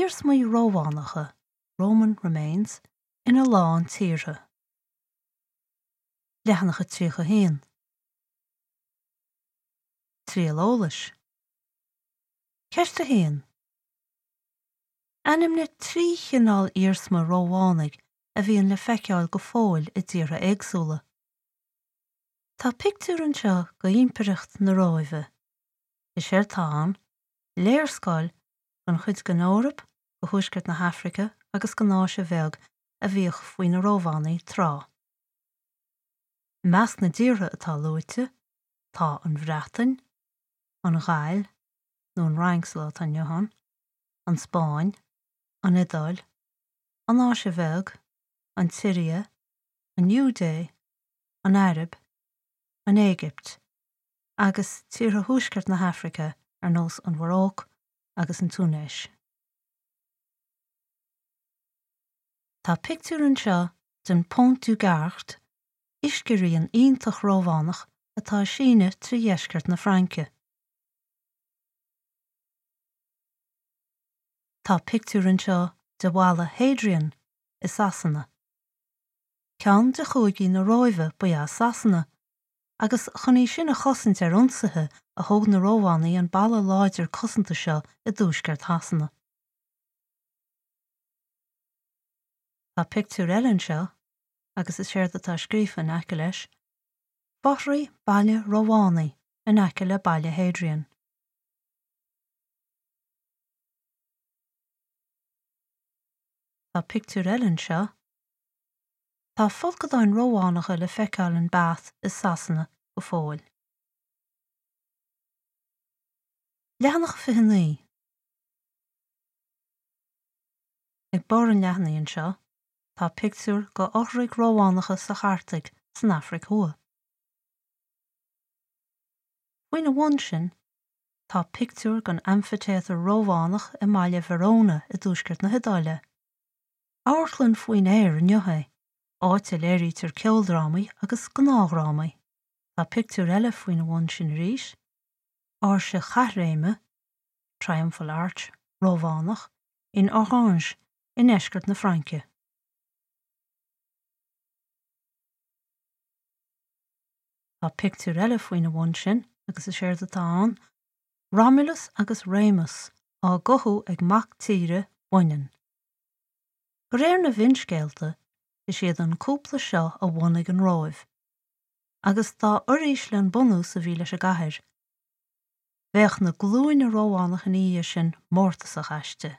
iarsmaí Rómhánacha, Roman remains, ina lán tíortha. Leathanach 31. Triail eolais. Ceist 1. Ainmnigh 3 chineál iarsma Rómhánaigh a bhíonn le feiceáil go fóill i dtíortha éagsúla. Tá pictiúr anseo d'Impireacht na Róimhe. Is éard atá ann, léarscáil den chuid den Eoraip, de thuaisceart na hAfraice agus den Áise Bheag a bhíodh faoi na Rómhánaigh tráth. I measc na dtíortha atá luaite tá an Bhreatain, an Ghaill, nó an Fhrainc sa lá atá inniu ann, an Spáinn, an Iodáil, an Áise Bheag, an tSiria, an Iúidé, an Araib, an Éigipt, agus tíortha thuaisceart na hAfraice ar nós an Mharóic agus an Túinéis. Tá pictiúr anseo den Pont du Gard, uisce-rian iontach Rómhánach atá ag síneadh trí dheisceart na Fraince. Tá pictiúr anseo de Bhalla Hadrian i Sasana. Ceann de chúigí na Róimhe ba ea Sasana, agus chun í sin a chosaint ar ionsaithe a thóg na Rómhánaigh an balla láidir cosanta seo i dtuaisceart Shasana. Tá pictiúr eile anseo, agus is éard atá scríofa in aice leis, Fothraigh baile Rómhánaigh in aice le Baile Hadrian. Tá pictiúr eile anseo. Tá folcadáin Rómhánacha le feiceáil in Bath i Sasana go fóill. Leathanach 29. Ag barr an leathanaigh anseo, tá pictiúr de fhothraigh Rómhánacha sa Chartaig san Afraic Thuaidh. Faoina bhun sin, tá pictiúr den amfaitéatar Rómhánach i mbaile Verona i dtuaisceart na hIodáile. Amharclann faoin aer inniu é, áit a léirítear ceoldrámaí agus gnáthdhrámaí. Tá pictiúr eile faoina bhun sin arís, áirse chaithréime, triumphal arch, Rómhánach, in Orange i ndeisceart na Fraince. Tá pictiúr eile faoina bhun sin agus is éard atá ann, Romulus agus Remus á gcothú ag mac tíre baineann. De réir na bhfinscéalta, is iad an cúpla seo a bhunaigh an Róimh, agus dá uirísle an bunús a bhí leis an gcathair, bheadh na glúine Rómhánach ina dhiaidh sin mórtasach aisti.